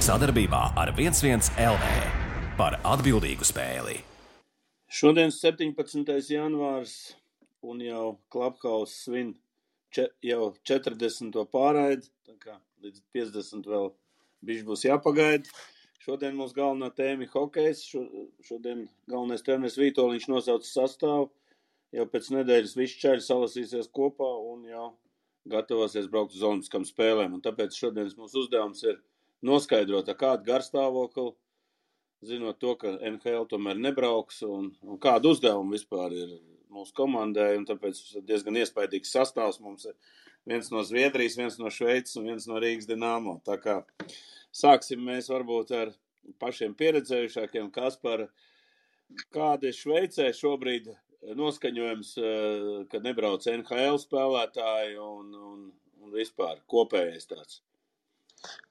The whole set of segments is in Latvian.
Sadarbībā ar 11 LV par atbildīgu spēli. Šodien 17. janvārs un jau Clubhouse svin jau 40. pārraidi, tā kā līdz 50 vēl bišķi būs jāpagaida. Šodien mums galvenā tēma ir hokejs. Šodien galvenais treneris Vītoliņš nosauca sastāvu. Jau pēc nedēļas visi čaļi salasīsies kopā un jau gatavosies braukt uz olimpiskām spēlēm. Un tāpēc šodienas mūsu uzdevums ir noskaidrot, kādu garstāvokli, zinot to, ka NHL tomēr nebrauks un kādu uzdevumu vispār ir mūsu komandai. Un tāpēc diezgan iespaidīgs sastāvs mums ir viens no Zviedrijas, viens no Šveices un viens no Rīgas Dinamo. Tā kā sāksim mēs varbūt ar pašiem pieredzējušākiem. Kaspar, kāda ir Šveicē šobrīd noskaņojums, kad nebrauc NHL spēlētāji un vispār kopējais tāds?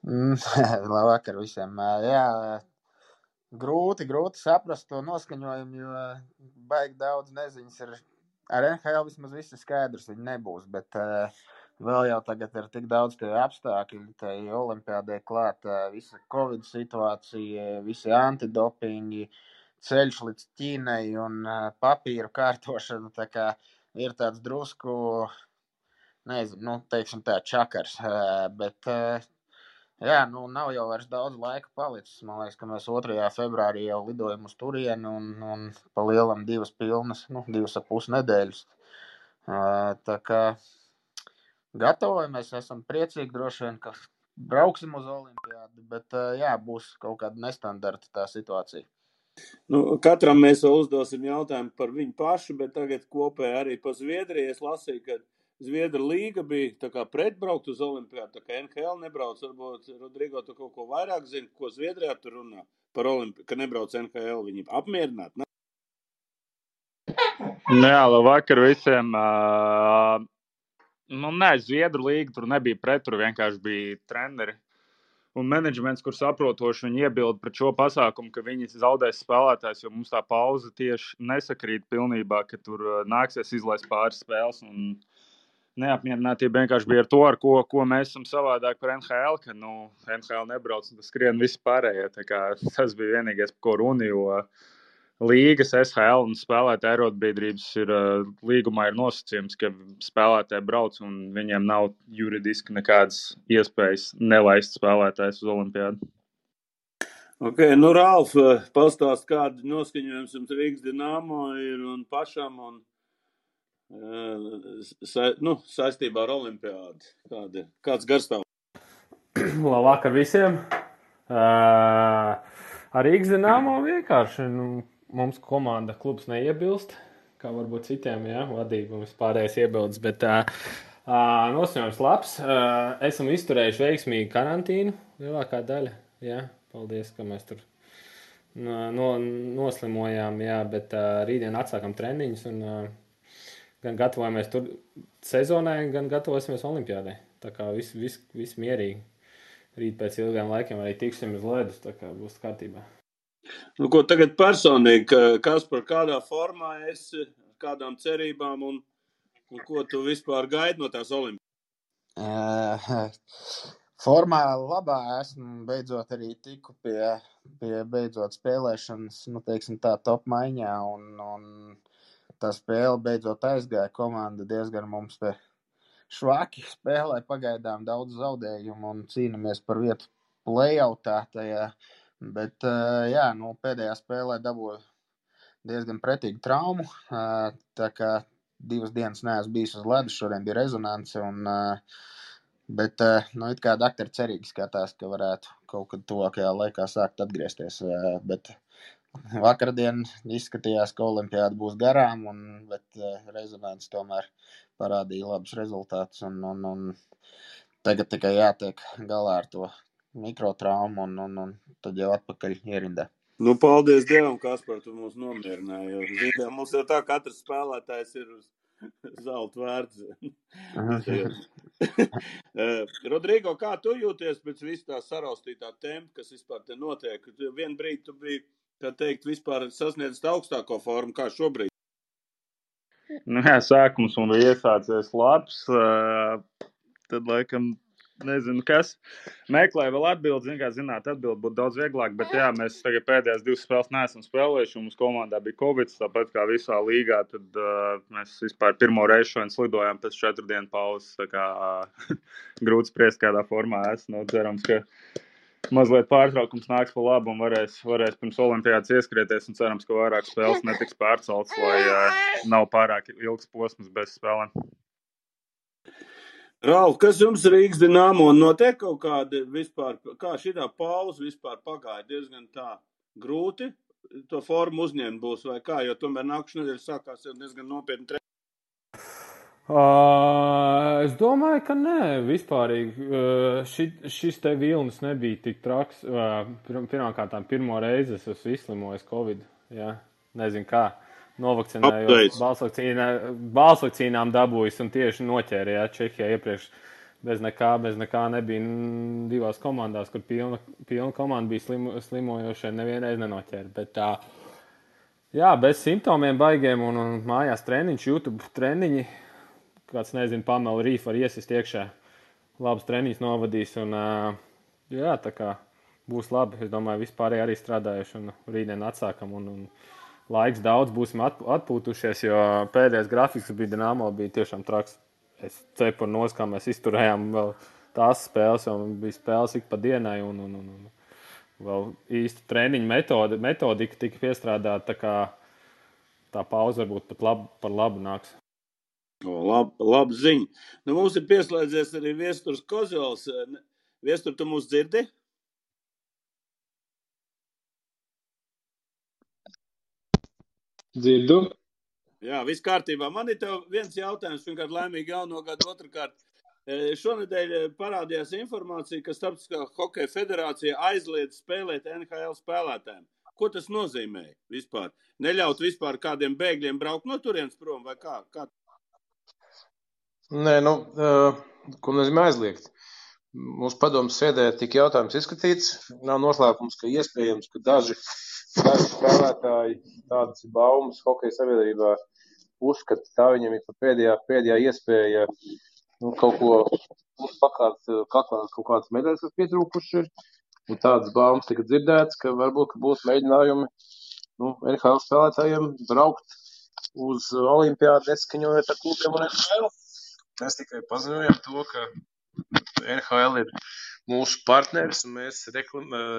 Labvakar visiem. Jā, grūti saprast to noskaņojumu, jo baigi daudz neziņas ir. Ar NHL vismaz viss ir skaidrs, viņi nebūs, bet vēl jau tagad ir tik daudz tie apstākļi, tai olimpiādē klāt, visa Covid situācija, visi antidopingi, ceļš līdz Ķīnai un papīru kārtošana, tā kā ir tāds drusku, nezinu, teiksim tā, čakars, bet jā, nav jau vairs daudz laika palicis. Man liekas, ka mēs 2. februārī jau lidojam uz turieni un pa lielam 2 pilnas, 2,5 nedēļas. Tā kā gatavojamies, esam priecīgi droši vien, ka brauksim uz olimpiādu, bet jā, būs kaut kāda nestandarta tā situācija. Katram mēs vēl uzdosim jautājumu par viņu pašu, bet tagad kopēji arī pa Zviedriju. Es lasīju, ka Zviedru līga bija tā kā pretbraukt uz olimpiādu, tā kā NHL nebrauc. Varbūt, Rodrigo, tu kaut ko vairāk zini, ko Zviedrijā tur runā par olimpiādu, ka nebrauc NHL. Viņi apmierināti, ne? Jā, labvakar visiem. Zviedru līga tur nebija pret, tur vienkārši bija treneri un menedžments, kur saprotoši viņi iebilda pret šo pasākumu, ka viņi zaudēs spēlētājs, jo mums tā pauze tieši nesakrīt pilnībā, ka tur nāksies izlaist pāris spēles. Un neapmierinātība vienkārši bija ar to, ar ko mēs esam savādāk par NHL, ka NHL nebrauc un tas skrien visi pārējie. Tā kā tas bija vienīgais, par ko runa, jo līgas, SHL un spēlētāju arotbiedrības līgumā ir nosacījums, ka spēlētāji brauc un viņiem nav juridiski nekādas iespējas nelaist spēlētājus uz olimpiādu. Ok, Ralf, pastāst, kāda noskaņojums jums Rīgas Dinamo ir un pašam un saistībā ar olimpiādu. Kāds garstāvoklis? Labvakar visiem. Ar Rīgas Dinamo vienkārši, mums komanda klubs neiebilst, kā varbūt citiem, jā, vadība mums pārējais iebildes, bet noskaņojums labs. Esam izturējuši veiksmīgi karantīnu, lielākā daļa, jā, paldies, ka mēs tur noslimojām, jā, bet rītdien atsākam treniņus un gan gatavojamies tur sezonai, gan gatavosimies olimpiādai. Tā kā viss mierīgi. Rīt pēc ilgiem laikiem arī tiksim uz ledus, tā kā būs kārtībā. Ko tagad personīgi, Kaspar, kādā formā esi, kādām cerībām un ko tu vispār gaidi no tās olimpiādas? Formā labā esmu, beidzot arī tiku pie beidzot spēlēšanas, teiksim tā, top maiņā un tā spēle beidzot aizgāja. Komanda diezgan mums te švaki spēlē, pagaidām daudz zaudējumu un cīnamies par vietu playoutā tajā. Bet, jā, pēdējā spēlē dabūju diezgan pretīgu traumu, tā kā 2 dienas neesmu bijis uz ledus, šodien bija rezonance, bet, it kā daktari cerīgi skatās, ka varētu kaut kad tuvākajā laikā sākt atgriezties, bet vakardien izskatījās, ka olimpiāda būs garām, bet rezonance tomēr parādīja labus rezultātus, un tagad tikai jātiek galā ar to mikrotraumu un tad jau atpakaļ ierindā. Paldies Dievam, Kaspar, tu mūs nomierināji, jo zinām, mums jau tā katrs spēlētājs ir uz zelta vērts. Rodrigo, kā tu jūties pēc visu tā saraustītā tempa, kas vispār te notiek? Vien brīdi tu biji, kā teikt, vispār sasniedzis augstāko formu, kā šobrīd? Jā, sākums un bija iesācies labs, tad laikam nezinu, kas. Meklēju vēl atbildi, atbildi būtu daudz vieglāk, bet jā, mēs tagad pēdējās 2 spēles neesam spēlējuši, un mums komandā bija Covid, tāpēc kā visā līgā, tad mēs vispār pirmo reizi šodien slidojām pēc 4 dienu pauzes, tā kā grūti spriest, kādā formā esmu. Cerams, ka mazliet pārtraukums nāks pa labu un varēs pirms olimpiādas ieskrieties, un cerams, ka vairāk spēles netiks pārceltas, lai nav pārāk ilgs posms bez spēlēm. Ralf, kas jums Rīgas Dinamo notiek kaut kādi vispār, kā šitā pauze vispār pagāja diezgan tā grūti, to formu uzņemt būs vai kā, jo tomēr nākušajā nedēļā sākās jau diezgan nopietni Es domāju, ka nē, vispārīgi. Šis te vilnis nebija tik traks. Pirmkārtām, pirmo reizi es esmu izslimojis Covid. Ja? Nezinu kā. Novakcinējos, balsvakcīnām dabūjis un tieši noķēra, ja, Čehijā iepriekš bez nekā nebija 2 komandās, kur pilna komanda bija slimojošie, nevienreiz nenoķēra. Bet jā, bez simptomiem baigiem un mājās treniņš, YouTube treniņi, kāds nezinu, Pamela Rīf var iesist iekšā, labs treniņš novadīs un jā, tā kā būs labi. Es domāju, vispārēji arī strādājuši un rītdien atsākam un laiks daudz, būsim atpūtušies, jo pēdējais grafiks bija Dinamo, bija tiešām traks. Es cepuru nos, kā mēs izturējām vēl tās spēles, jo bija spēles ik pa dienai un vēl īsti treniņu metodika tika piestrādāta, tā kā tā pauze varbūt pat par labu nāks. Labi ziņa. Nu, mums ir pieslēdzies arī Viesturs Kozjols. Viestur, tu mūs dzirdi? Dzirdu. Jā, viss kārtībā. Man ir tev viens jautājums, pirmkārt, laimīgi jauno gadu, otrkārt. Šonedēļ parādījās informācija, ka Starptautiskā hokeja federācija aizliedz spēlēt NHL spēlētājiem. Ko tas nozīmē vispār? Neļaut vispār kādiem bēgļiem braukt no turienes prom vai kā? Nē, ko nozīmē aizliegt? Mūsu padomas sēdē tika jautājums izskatīts. Nav noslēpums, ka iespējams, ka daži spēlētāji, tādas ir baumas hokeja sabiedrībā, uzskata, tā viņam ir pēdējā iespēja kaut ko pakāt kaut kādas medaļas, kas pietrūkuši ir. Un tādas baumas tika dzirdētas, ka varbūt būs mēģinājumi NHL spēlētājiem braukt uz olimpiādu, neskaņojot ar klubiem un NHL. Mēs tikai paziņojam to, ka NHL ir mūsu partneris un mēs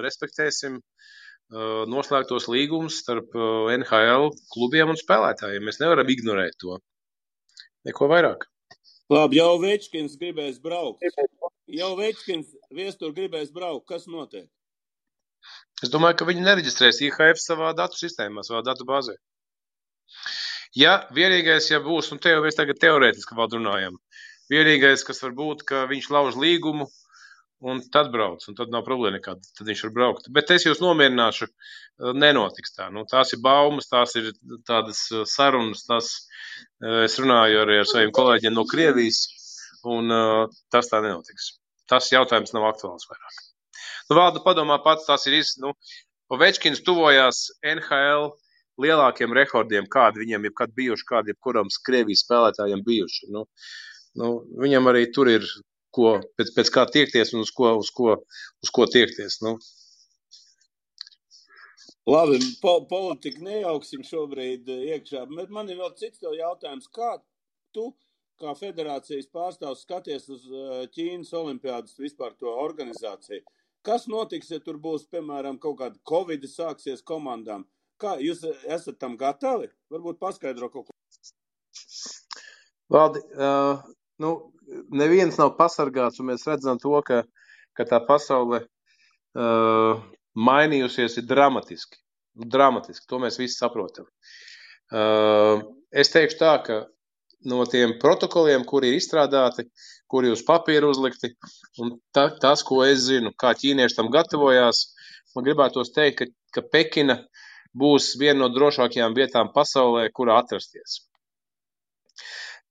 respektēsim noslēgtos līgumus starp NHL klubiem un spēlētājiem. Mēs nevaram ignorēt to. Neko vairāk. Labi, jau Večkins gribēs braukt. Viestur gribēs braukt. Kas notiek? Es domāju, ka viņi nereģistrēs IHF savā datu sistēmā, savā datu bāzē. Ja vienīgais, ja būs, un te jau mēs tagad teorētiski vēl runājam, vienīgais, kas var būt, ka viņš lauž līgumu, un tad brauc, un tad nav problēma nekāda, tad viņš var braukt. Bet es jūs nomierināšu, nenotiks tā. Tās ir baumas, tās ir tādas sarunas, es runāju arī ar saviem kolēģiem no Krievijas, un tas tā nenotiks. Tas jautājums nav aktuāls vairāk. Valda padomā pats, tas ir Ovečkins tuvojās NHL lielākiem rekordiem, kādi viņiem jebkad bijuši, kādi jebkuram Krievijas spēlētājiem bijuši. Viņam arī tur ir pēc kā tiekties un uz ko tiekties. Labi, politiku nejauksim šobrīd iekšā, bet man ir vēl cits tev jautājums. Kā tu, kā federācijas pārstāvs, skaties uz Ķīnas olimpiādas vispār to organizāciju? Kas notiks, ja tur būs, piemēram, kaut kāda Covid sāksies komandām? Kā jūs esat tam gatavi? Varbūt paskaidro kaut ko. Valdi, neviens nav pasargāts, un mēs redzam to, ka tā pasaule mainījusies ir dramatiski. Dramatiski, to mēs visi saprotam. Es teikšu tā, ka no tiem protokoliem, kuri ir izstrādāti, kuri uz papīra uzlikti, un tas, ko es zinu, kā ķīnieši tam gatavojās, man gribētos teikt, ka Pekina būs viena no drošākajām vietām pasaulē, kurā atrasties.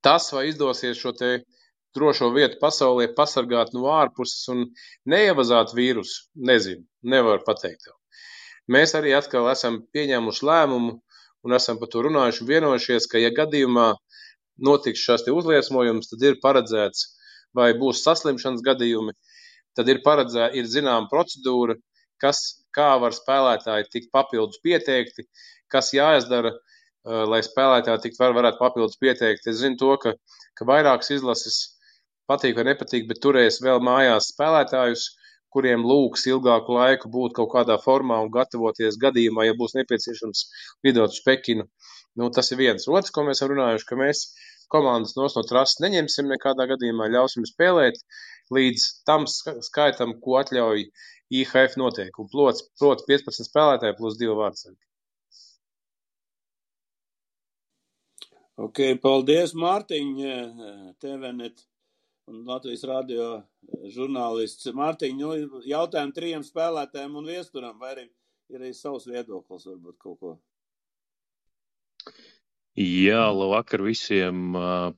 Tas, vai izdosies šo te drošo vietu pasaulē pasargāt no ārpuses un neievazāt vīrusu, nezinu, nevaru pateikt tev. Mēs arī atkal esam pieņēmuši lēmumu un esam par to runājuši un vienojušies, ka, ja gadījumā notiks šās te uzliesmojums, tad ir paredzēts vai būs saslimšanas gadījumi, tad ir zināma procedūra, kā var spēlētāji tikt papildus pieteikti, kas jāizdara, lai spēlētāji varētu papildus pieteikti. Es zinu to, ka vairākas izlases patīk vai nepatīk, bet turēs vēl mājās spēlētājus, kuriem lūgs ilgāku laiku būt kaut kādā formā un gatavoties gadījumā, ja būs nepieciešams lidot uz Pekinu. Nu, tas ir viens. Otrs, ko mēs runājuši, ka mēs komandas no trases neņemsim nekādā gadījumā, ļausim spēlēt līdz tam skaitam, ko atļauj IHF noteikumi. Proti 15 spēlētāji plus 2 vārdsargi. Ok, paldies, Mārtiņ, TVNet un Latvijas radio žurnālists. Mārtiņ, jautājumu 3 spēlētājiem un viesturam, vai ir arī savs viedoklis, varbūt kaut ko? Jā, labvakar visiem.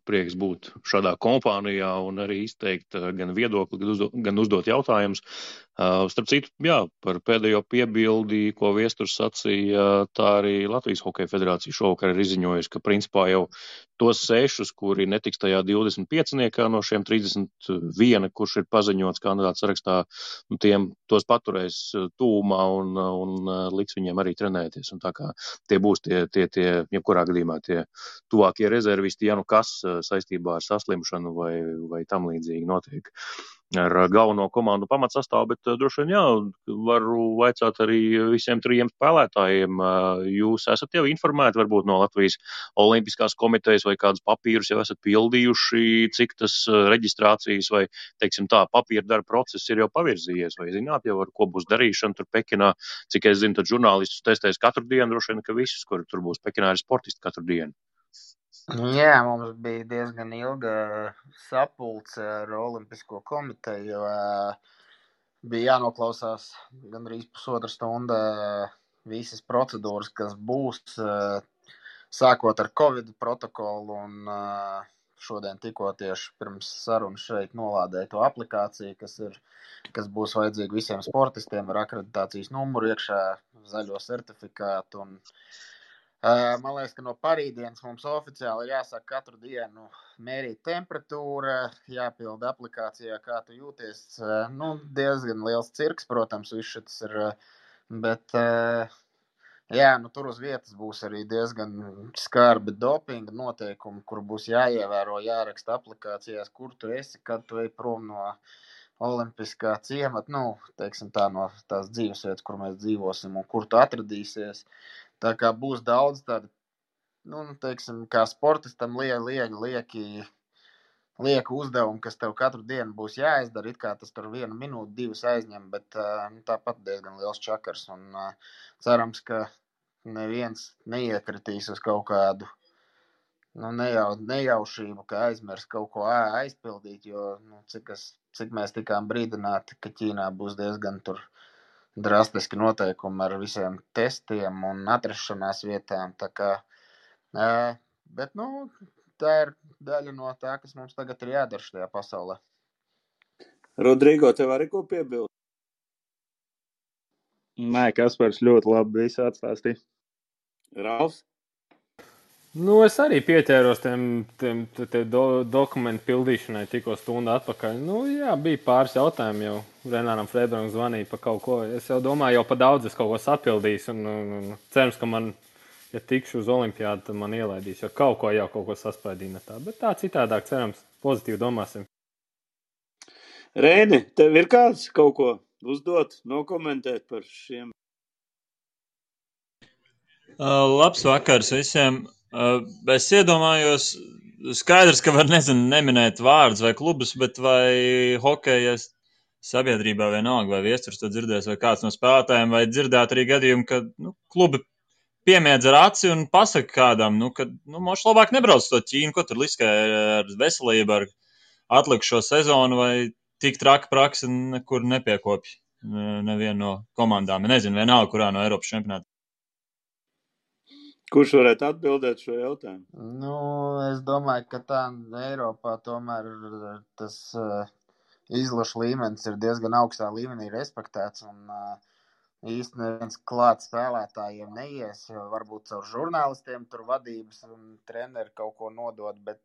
Prieks būt šādā kompānijā un arī izteikt gan viedokli, gan uzdot jautājumus. Starp citu, jā, par pēdējo piebildi, ko Viesturs sacīja, tā arī Latvijas Hokeja federācija šovakar ir izziņojusi, ka principā jau tos 6, kuri netiks tajā 25 no šiem 31, kurš ir paziņots kandidāts sarakstā, tos paturēs tūmā un liks viņiem arī trenēties. Un tā kā tie būs tie jebkurā gadījumā tie tuvākie rezervisti, ja nu kas saistībā ar saslimšanu vai tam līdzīgi notiek ar galveno komandu pamatsastāvu, bet droši vien jā, varu vaicāt arī visiem 3 spēlētājiem. Jūs esat jau informēti varbūt no Latvijas Olimpiskās komitejas vai kādus papīrus jau esat pildījuši, cik tas reģistrācijas vai, teiksim tā, papīra darba process ir jau pavirzījies, vai zināt jau, ar ko būs darīšana tur Pekinā? Cik es zinu, tad žurnālistus testēs katru dienu, droši vien, ka visus, kuri tur būs Pekinā, ir sportisti katru dienu. Jā, mums bija diezgan ilga sapulce ar Olimpisko komiteju, jo bija jānoklausās gandrīz pusotra stunda visas procedūras, kas būs, sākot ar Covid protokolu, un šodien tikko tieši pirms sarunas šeit nolādēja to aplikāciju, kas būs vajadzīga visiem sportistiem ar akreditācijas numuru iekšā, zaļo certifikātu. Un man liekas, ka no parītdienas mums oficiāli ir jāsāk katru dienu mērīt temperatūra, jāpilda aplikācijā, kā tu jūties. Diezgan liels cirks, protams, viss šis ir, bet jā, tur uz vietas būs arī diezgan skarbi dopinga noteikumi, kur būs jāievēro, jāraksta aplikācijās, kur tu esi, kad tu ej prom no Olimpiskā ciemata, teiksim tā, no tās dzīvesvietas, kur mēs dzīvosim un kur tu atradīsies. Tā kā būs daudz tādu, teiksim, kā sportistam lieku uzdevumu, kas tev katru dienu būs jāizdara, it kā tas tur 1 minūti, 2 aizņem, bet tāpat diezgan liels čakars. Un cerams, ka neviens neiekritīs uz kaut kādu nejaušību, ka aizmirs kaut ko aizpildīt, jo cik mēs tikām brīdināti, ka Ķīnā būs diezgan tur drastiski noteikumi ar visiem testiem un atrašanās vietām. Tā kā, bet tā ir daļa no tā, kas mums tagad ir jādara šajā pasaulē. Rodrigo, tev arī ko piebilst? Nē, Kaspars ļoti labi visu atstāstīja. Ralfs? Es arī pieķēros tiem dokumentu pildīšanai tikko stundu atpakaļ. Jā, bija pāris jautājumi jau. Renāram Freibergam zvanīja par kaut ko. Es jau domāju, jau pa daudz es kaut ko sapildīšu. Un cerams, ka man, ja tikšu uz olimpiādu, tad man ielaidīs. Jo kaut ko saspaidīja tā. Bet tā citādāk, cerams, pozitīvi domāsim. Reini, tev ir kāds kaut ko uzdot, nokomentēt par šiem? Labs vakars visiem. Es iedomājos, skaidrs, ka var neminēt vārdus vai klubus, bet vai hokeja sabiedrībā vienalga, vai Viesturs to dzirdēs, vai kāds no spēlētājiem, vai dzirdēt arī gadījumu, ka klubi piemiedz ar aci un pasaka kādam, ka moš labāk nebrauc to Ķīnu, ko tur liskē ar veselību, ar atlikušo sezonu, vai tik traka praksa nekur nepiekopja nevienu no komandām. Nezinu, vienalga, kurā no Eiropas čempionāta. Kurš varētu atbildēt šo jautājumu? Es domāju, ka tā Eiropā tomēr tas izlašu līmenis ir diezgan augstā līmenī respektēts, un īsti neviens klāt spēlētājiem neies, varbūt caur žurnālistiem tur vadības un treneri kaut ko nodot, bet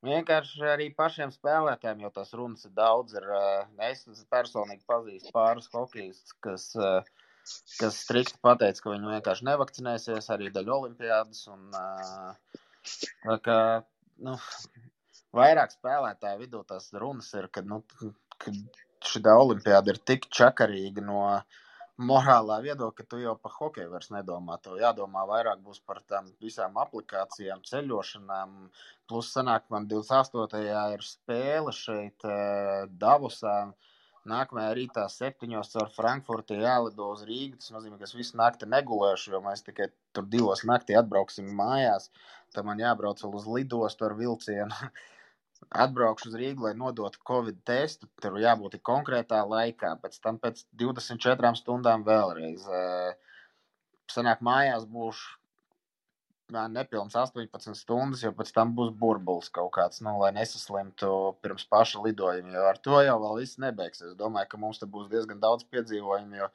Vienkārši arī pašiem spēlētājiem, jo tas runas ir daudz. Es personīgi pazīstu pāris hokejistus, kas strikti pateica, ka viņi vienkārši nevakcinēsies arī daļa olimpiādas. Tā kā, vairāk spēlētāju vidū tās runas ir, ka šī olimpiāda ir tik čakarīga no morālā viedokļa, ka tu jau par hokeju vairs nedomā. Tev jādomā vairāk būs par tām visām aplikācijām, ceļošanām. Plus sanāk, man 28. ir spēle šeit Davosā. Nākamajā rītā 7:00 caur Frankfurti jālido uz Rīgu. Tas nozīmē, ka es visu nakti negulēšu, jo mēs tikai tur 2:00 naktī atbrauksim mājās. Tad man jābrauc vēl uz lidostu ar vilcienu. Atbraukšu uz Rīgu, lai nodotu Covid testu. Tur jābūt konkrētā laikā. Pēc tam pēc 24 stundām vēlreiz. Sanāk, mājās būšu nepilns 18 stundas, jo pēc tam būs burbulis kaut kāds, lai nesaslimtu pirms paša lidojuma. Jo ar to jau vēl viss nebeigsies. Es domāju, ka mums te būs diezgan daudz piedzīvojumu, jo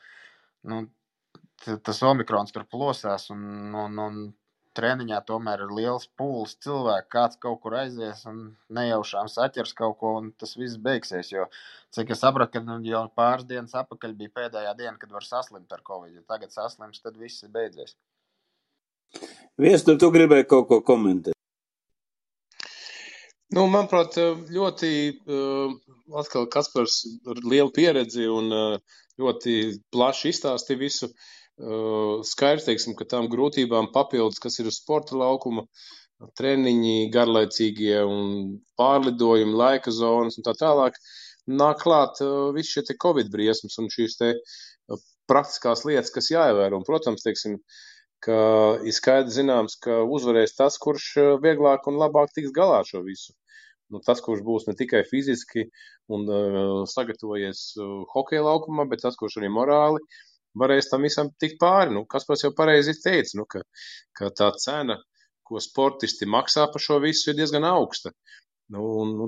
tas omikrons tur plosās un treniņā tomēr ir liels pūlis cilvēku, kāds kaut kur aizies un nejaušām saķers kaut ko, un tas viss beigsies, jo, cik es sapratu, ka jau pāris dienas atpakaļ bija pēdējā diena, kad var saslimt ar Covid, ja tagad saslims, tad viss ir beidzies. Viestur, tu gribēji kaut ko komentēt? Manuprāt, ļoti atkal Kaspars ar lielu pieredzi un ļoti plaši izstāstīja visu. Skaidrs, teiksim, ka tām grūtībām papildus, kas ir uz sporta laukuma, treniņi, garlaicīgie un pārlidojumi, laika zonas un tā tālāk, nāk klāt visi šie te Covid briesmas un šīs te praktiskās lietas, kas jāievēro. Un, protams, teiksim, ka ir skaidrs zināms, ka uzvarēs tas, kurš vieglāk un labāk tiks galā šo visu. Tas, kurš būs ne tikai fiziski un sagatavojies hokeja laukumā, bet tas, kurš arī morāli varēs tam visam tikt pāri. Kaspars jau pareizi teica, ka tā cena, ko sportisti maksā par šo visu, ir diezgan augsta.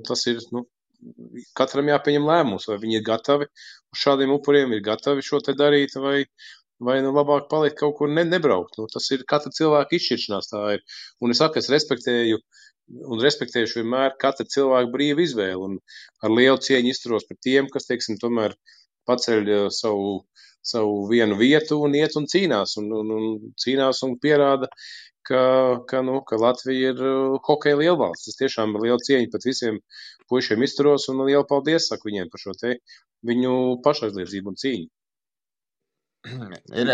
Tas ir, katram jāpieņem lēmums, vai viņi ir gatavi uz šādiem upuriem, ir gatavi šo te darīt, vai labāk palikt kaut kur nebraukt. Tas ir katra cilvēka izšķiršanās tā ir. Un es saku, es respektējuši vienmēr katra cilvēka brīva izvēle. Un ar lielu cieņu izturos par tiem, kas, teiksim, tomēr paceļ savu vienu vietu un iet un cīnās. Un cīnās un pierāda, ka Latvija ir hokeja lielvalsts. Es tiešām ar lielu cieņu pat visiem puišiem izturos un lielu paldies saku viņiem par šo te viņu pašaizliedzību un cīņu. Ir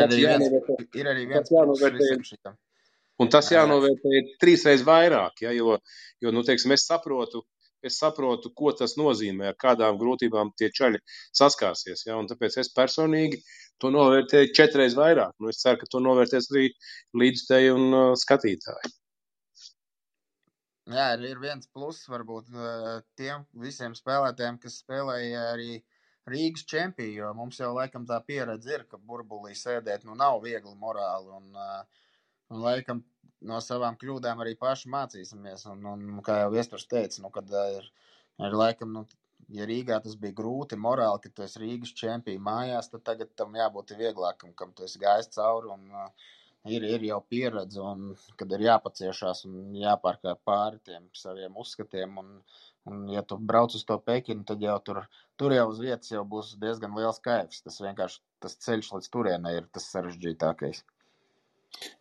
arī viens pluss visam šitam. Un tas jānovērtē 3 reizes vairāk, ja, jo teiksim, es saprotu, ko tas nozīmē, ar kādām grūtībām tie čaļi saskārsies, ja, un tāpēc es personīgi to novērtēju 4 reizes vairāk. Es ceru, ka to novērtēs arī līdzstēji un skatītāji. Jā, ir viens pluss varbūt tiem visiem spēlētājiem, kas spēlēja arī Rīgas čempiju, jo mums jau laikam tā pieredze ir, ka burbulī sēdēt nav viegli morāli un laikam no savām kļūdām arī paši mācīsimies. Un kā jau Viesturs teica, kad ir laikam, ja Rīgā tas bija grūti morāli, ka tu esi Rīgas čempiju mājās, tad tagad tam jābūt vieglākam, kam tu esi gājis cauri un ir jau pieredze, un kad ir jāpaciešās un jāpārkāp pāri tiem saviem uzskatiem. Un ja tu brauc uz to Pekinu, tad jau tur jau uz vietas jau būs diezgan liels kaifs. Tas vienkārši tas ceļš līdz turienei ir tas sarežģītākais.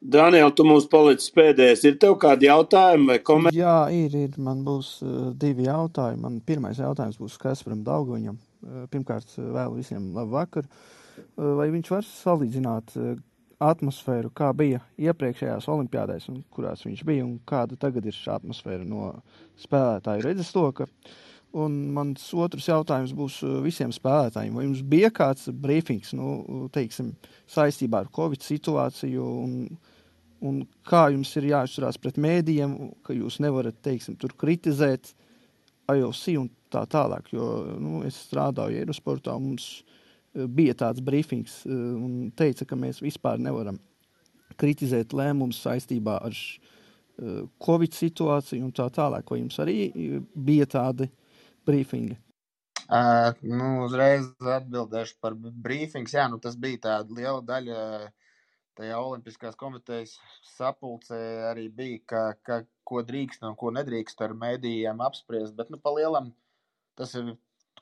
Daniel, tu mums palicis pēdējais. Ir tev kādi jautājumi vai komentāri? Jā, ir. Man būs 2 jautājumi. Man pirmais jautājums būs Kasparam Daugaviņam. Pirmkārt, vēlu visiem labu vakaru. Vai viņš var salīdzināt atmosfēru, kā bija iepriekšējās olimpiādēs, un kurās viņš bija, un kāda tagad ir šī atmosfēra no spēlētāju redzesloka? Un mans otrs jautājums būs visiem spēlētājiem. Vai jums bija kāds brīfings, teiksim, saistībā ar Covid situāciju, un kā jums ir jāizturās pret mēdījiem, ka jūs nevarat, teiksim, tur kritizēt IOC un tā tālāk, jo es strādāju Eirosportā, mums bija tāds brīfings un teica, ka mēs vispār nevaram kritizēt lēmumus saistībā ar Covid situāciju un tā tālāk. Vai jums arī bija tādi brīfingi? Uzreiz atbildēšu par brīfings. Jā, tas bija tāda liela daļa tajā Olimpiskās komitejas sapulcē arī bija, ko drīkst un ko nedrīkst ar mēdījiem apspriest, bet pa lielam tas ir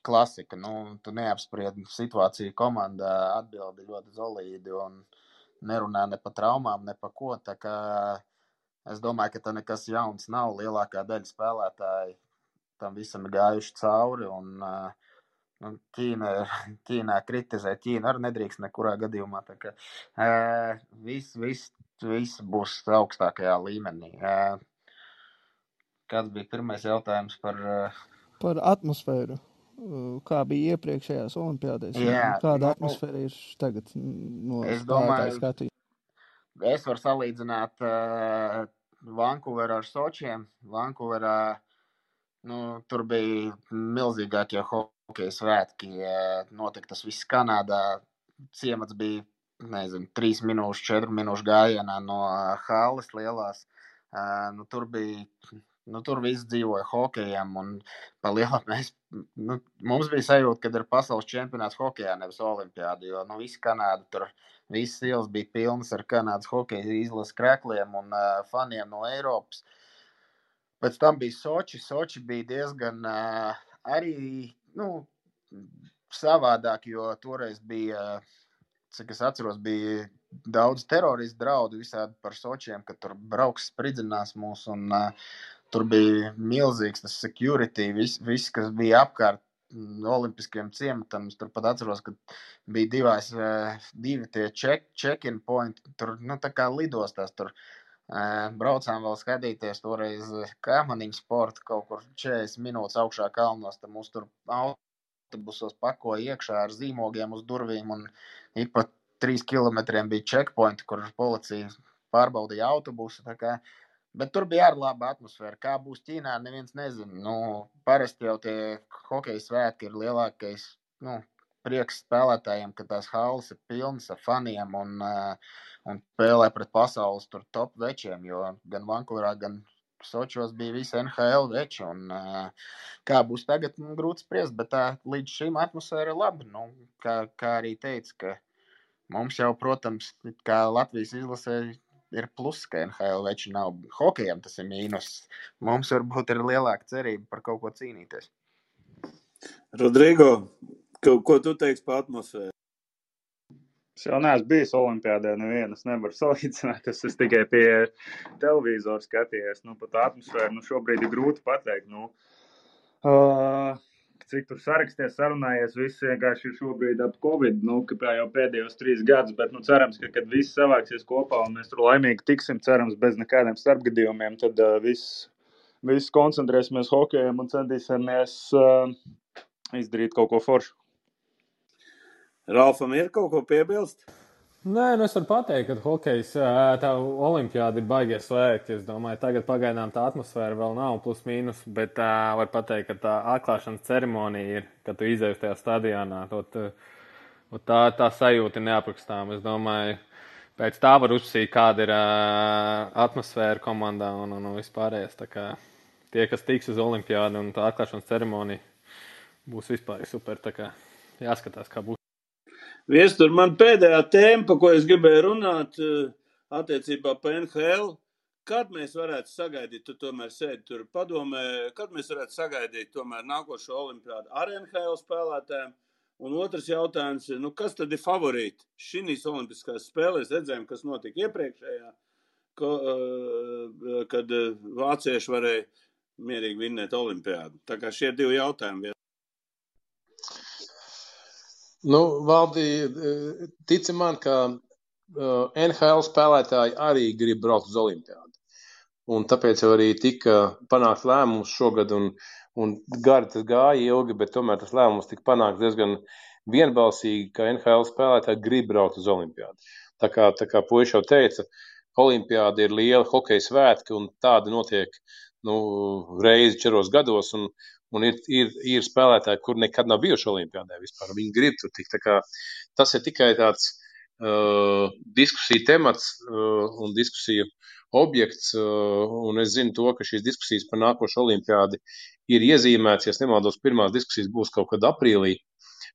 klasika. Tu neapspriedi situāciju komandā, atbildi ļoti solīdi un nerunā ne pa traumām, ne pa ko. Tā kā es domāju, ka tā nekas jauns nav. Lielākā daļa spēlētāji tam visam ir gājuši cauri un Ķīnā kritizē. Ķīna arī nedrīkst nekurā gadījumā. Tā kā viss būs augstākajā līmenī. Kāds bija pirmais jautājums par atmosfēru? Kā bija iepriekšējās olimpiādēs? Kāda atmosfēra ir tagad no spēlētāju skatījuma? Es varu salīdzināt Vankūveru ar Sočiem. Vankūverā tur bija milzīgākie hokeja svētki. Notika tas viss Kanādā. Ciemats bija, 3 minūšu, 4 minūšu gājienā no halles lielās. Tur viss dzīvoja hokejam un pa lielam mums bija sajūta, kad ir pasaules čempionāts hokejā, nevis olimpiādi, jo visi Kanāda tur, visas ielas bija pilnas ar Kanādas hokeja izlases krekļiem un faniem no Eiropas. Pēc tam bija Soči. Soči bija diezgan arī, savādāk, jo toreiz bija, cik es atceros, bija daudz teroristu draudu visādi par Sočiem, ka tur brauks spridzinās mūs un tur bija milzīgs tas security, viss, kas bija apkārt olimpiskiem ciematam. Es tur pat atceros, ka bija divi tie check-in point, tur, tā kā lidostās tur. Braucām vēl skatīties toreiz kāmaniņu sportu kaut kur 40 minūtes augšā kalnos, tad mūs tur autobusos pakoja iekšā ar zīmogiem uz durvīm un ik pa 3 kilometriem bija checkpointi, kur policija pārbaudīja autobusu, tā kā, bet tur bija arī laba atmosfēra. Kā būs Ķīnā, neviens nezina. Parasti jau tie hokeja svētki ir lielākais, prieks spēlētājiem, ka tās halles ir pilnas ar faniem un spēlē pret pasaules tur top večiem, jo gan Vankūverā, gan Sočos bija visi NHL veči, un kā būs tagad, grūti spriest, bet tā līdz šim atmosfēra ir laba. Kā arī teica, ka mums jau, protams, kā Latvijas izlasē ir plus, ka NHL veči nav. Hokejam tas ir mīnus. Mums varbūt ir lielāka cerība par kaut ko cīnīties. Rodrigo, ko tu teiksi par atmosfēru? Es jau neesmu bijis olimpiādē nevienas, nevaru salīdzināt, es tikai pie televizoru skatījies, par tā atmosfēru, šobrīd ir grūti pateikt, cik tur saraksties, sarunājies, viss vienkārši ir šobrīd ap Covid, kā jau pēdējos 3 gadus, bet, cerams, ka, kad viss savāksies kopā un mēs tur laimīgi tiksim, cerams, bez nekādiem starpgadījumiem, tad viss koncentrēsimies hokejam un centīsimies izdarīt kaut ko foršu. Ralfam ir kaut ko piebilst? Nē, es varu pateikt, ka hokejs, tā olimpiāda ir baigies slēgt. Es domāju, tagad pagaidām tā atmosfēra vēl nav plus mīnus, bet var pateikt, ka tā atklāšanas ceremonija ir, kad tu izēji tajā stadionā. Tā sajūta ir neaprakstām. Es domāju, pēc tā var uzsīt, kāda ir atmosfēra komandā un vispārējais. Tā kā tie, kas tiks uz olimpiādu un tā atklāšanas ceremonija būs vispār super. Tā kā jāskatās, kā būs. Viestur, man pēdējā tēma, pa ko es gribēju runāt, attiecībā pa NHL, kad mēs varētu sagaidīt, tu tomēr sēdi tur padomē, kad mēs varētu sagaidīt tomēr nākošo olimpiādu ar NHL spēlētājiem, un otrs jautājums ir, kas tad ir favorīti šīs olimpiskās spēlēs, redzējām, kas notika iepriekšējā, kad vācieši varēja mierīgi vinnēt olimpiādu. Tā kā šie 2 jautājumi. Valdi, tici man, ka NHL spēlētāji arī grib braukt uz olimpiādu. Un tāpēc jau arī tika panākt lēmums šogad, un gari tas gāja ilgi, bet tomēr tas lēmums tika panākt diezgan vienbalsīgi, ka NHL spēlētāji grib braukt uz olimpiādu. Tā kā puiši jau teica, olimpiāda ir liela hokeja svētki, un tāda notiek reizi 4 gados, un ir spēlētāji, kur nekad nav bijuši olimpiādē vispār. Viņi grib tur tikt. Tā kā tas ir tikai tāds diskusiju temats un diskusiju objekts, un es zinu to, ka šīs diskusijas par nākošo olimpiādi ir iezīmēts, ja nemaldos, pirmās diskusijas būs kaut kad aprīlī,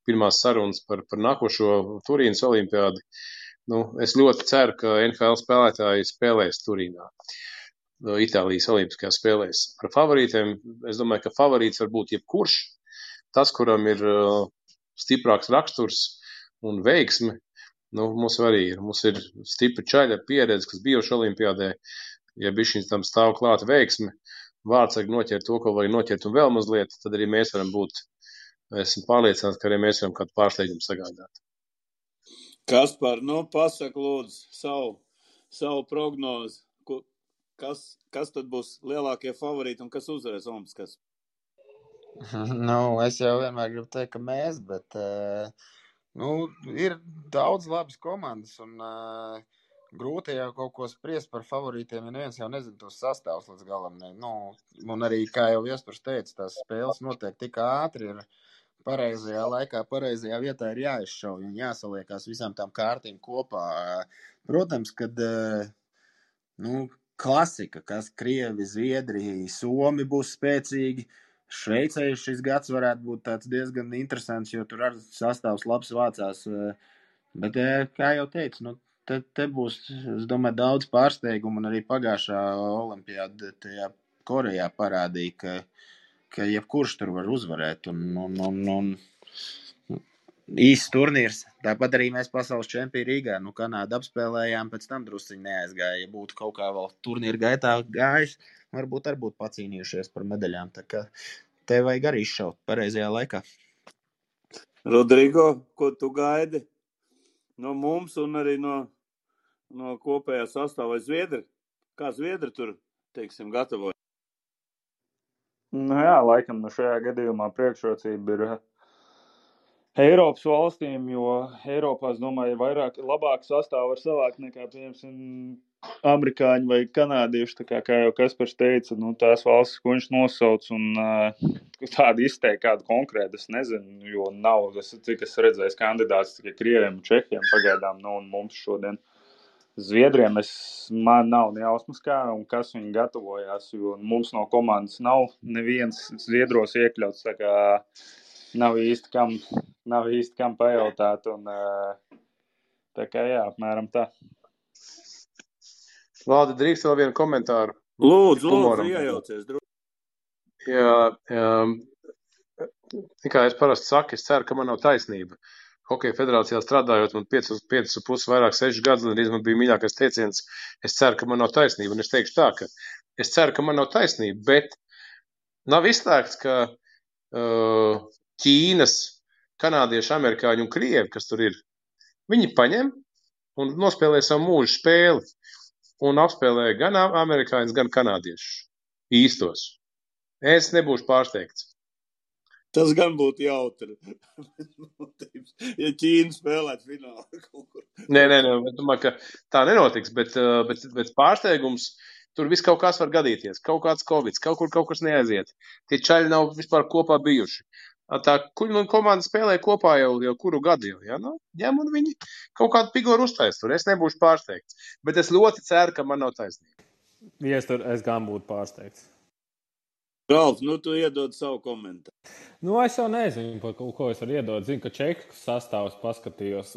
pirmās sarunas par nākošo Turīnas olimpiādi, Es ļoti ceru, ka NFL spēlētāji spēlēs Turīnā, Itālijas olimpiskajās spēlēs. Par favorītiem, es domāju, ka favorīts var būt jebkurš. Tas, kuram ir stiprāks raksturs un veiksme, mums arī ir. Mums ir stipri čaļi ar pieredzi, kas bijuši olimpiādē. Ja bišķiņš tam stāv klāta veiksme, vārdsargi noķert to, ko vajag noķert un vēl mazliet, tad arī mēs varam būt, esmu pārliecināts, ka arī mēs varam kādu pārsteigumu sagādāt. Kaspar, pasaka lūdzu savu prognozi. Kas tad būs lielākie favorīti un kas uzvarēs olimpiskās? Es jau vienmēr gribu teikt, ka mēs, bet ir daudz labas komandas un grūti jau kaut ko spriest par favorītiem, ja neviens jau nezina tos sastāvus līdz galam. Un arī, kā jau Viespars teica, tās spēles notiek tik ātri, ir pareizajā laikā, pareizajā vietā ir jāizšauj un jāsaliekās visām tām kārtīm kopā. Protams, kad klasika, kas Krievi, Zviedri, Somi būs spēcīgi. Šveicē šis gads varētu būt tāds diezgan interesants, jo tur arī sastāvs labs vācās. Bet, kā jau teicu, te būs, es domāju, daudz pārsteigumu, un arī pagājušā olimpiāda tajā Korejā parādīja, ka jebkurš tur var uzvarēt. Un īsts turnīrs. Tāpat arī mēs pasaules čempioni Rīgā. Kanādu apspēlējām, pēc tam drusciņi neaizgāja. Ja būtu kaut kā vēl turnīra gaitā gājis, varbūt arī būtu pacīnījušies par medaļām. Tā kā te vajag arī izšaut pareizajā laikā. Rodrigo, ko tu gaidi no mums un arī no kopējā sastāvā Zviedri? Kā Zviedri tur, teiksim, gatavoja? Jā, laikam šajā gadījumā priekšrocība ir Eiropas valstīm, jo Eiropā, es domāju, labāk sastāvu var savākt nekā, piemēram, amerikāņi vai kanādieši, kā jau Kaspars teica, tās valstis, ko viņš nosauc, un tādu izteikt kādu konkrētu, es nezinu, jo nav, cik es redzēju kandidāts tikai Krieviem un Čehiem pagaidām, un mums šodien Zviedriem man nav nejausmas kā, un kas viņi gatavojās, jo mums no komandas nav neviens Zviedros iekļauts, tā kā nav īsti kam pajautāt, un tā kā jā, apmēram tā. Valdi, drīkst vēl vienu komentāru? Lūdzu, iejaucies. Jā, kā es parasti saku, es ceru, ka man nav taisnība. Hokeja federācijā strādājot, man 5,5 vairāk 6 gadus, un arī man bija mīļākais teiciens, es ceru, ka man nav taisnība. Un es teikšu tā, ka es ceru, ka man nav taisnība, bet nav izslēgts, ka Ķīnas, kanādieši, amerikāņi un krievi, kas tur ir, viņi paņem un nospēlē savu mūžu spēli un apspēlē gan amerikāņus, gan kanādiešus īstos. Es nebūšu pārsteigts. Tas gan būtu jautri. Ja Ķīna spēlēt finālā kaut kur. Nē, es domāju, ka tā nenotiks, bet pārsteigums, tur viss kaut kas var gadīties. Kaut kāds Covid, kaut kur kaut kas neaiziet. Tie čaļi nav vispār kopā bijuši. Tā komanda spēlē kopā jau kuru gadu jau, ja? Ņem un viņi kaut kādu pigoru uztais tur. Es nebūšu pārsteigts, bet es ļoti ceru, ka man nav taisnība. Es gan būtu pārsteigts. Ralf, tu iedod savu komentāru. Es jau nezinu, par ko es varu iedot. Zinu, ka Čehu sastāvus paskatījos.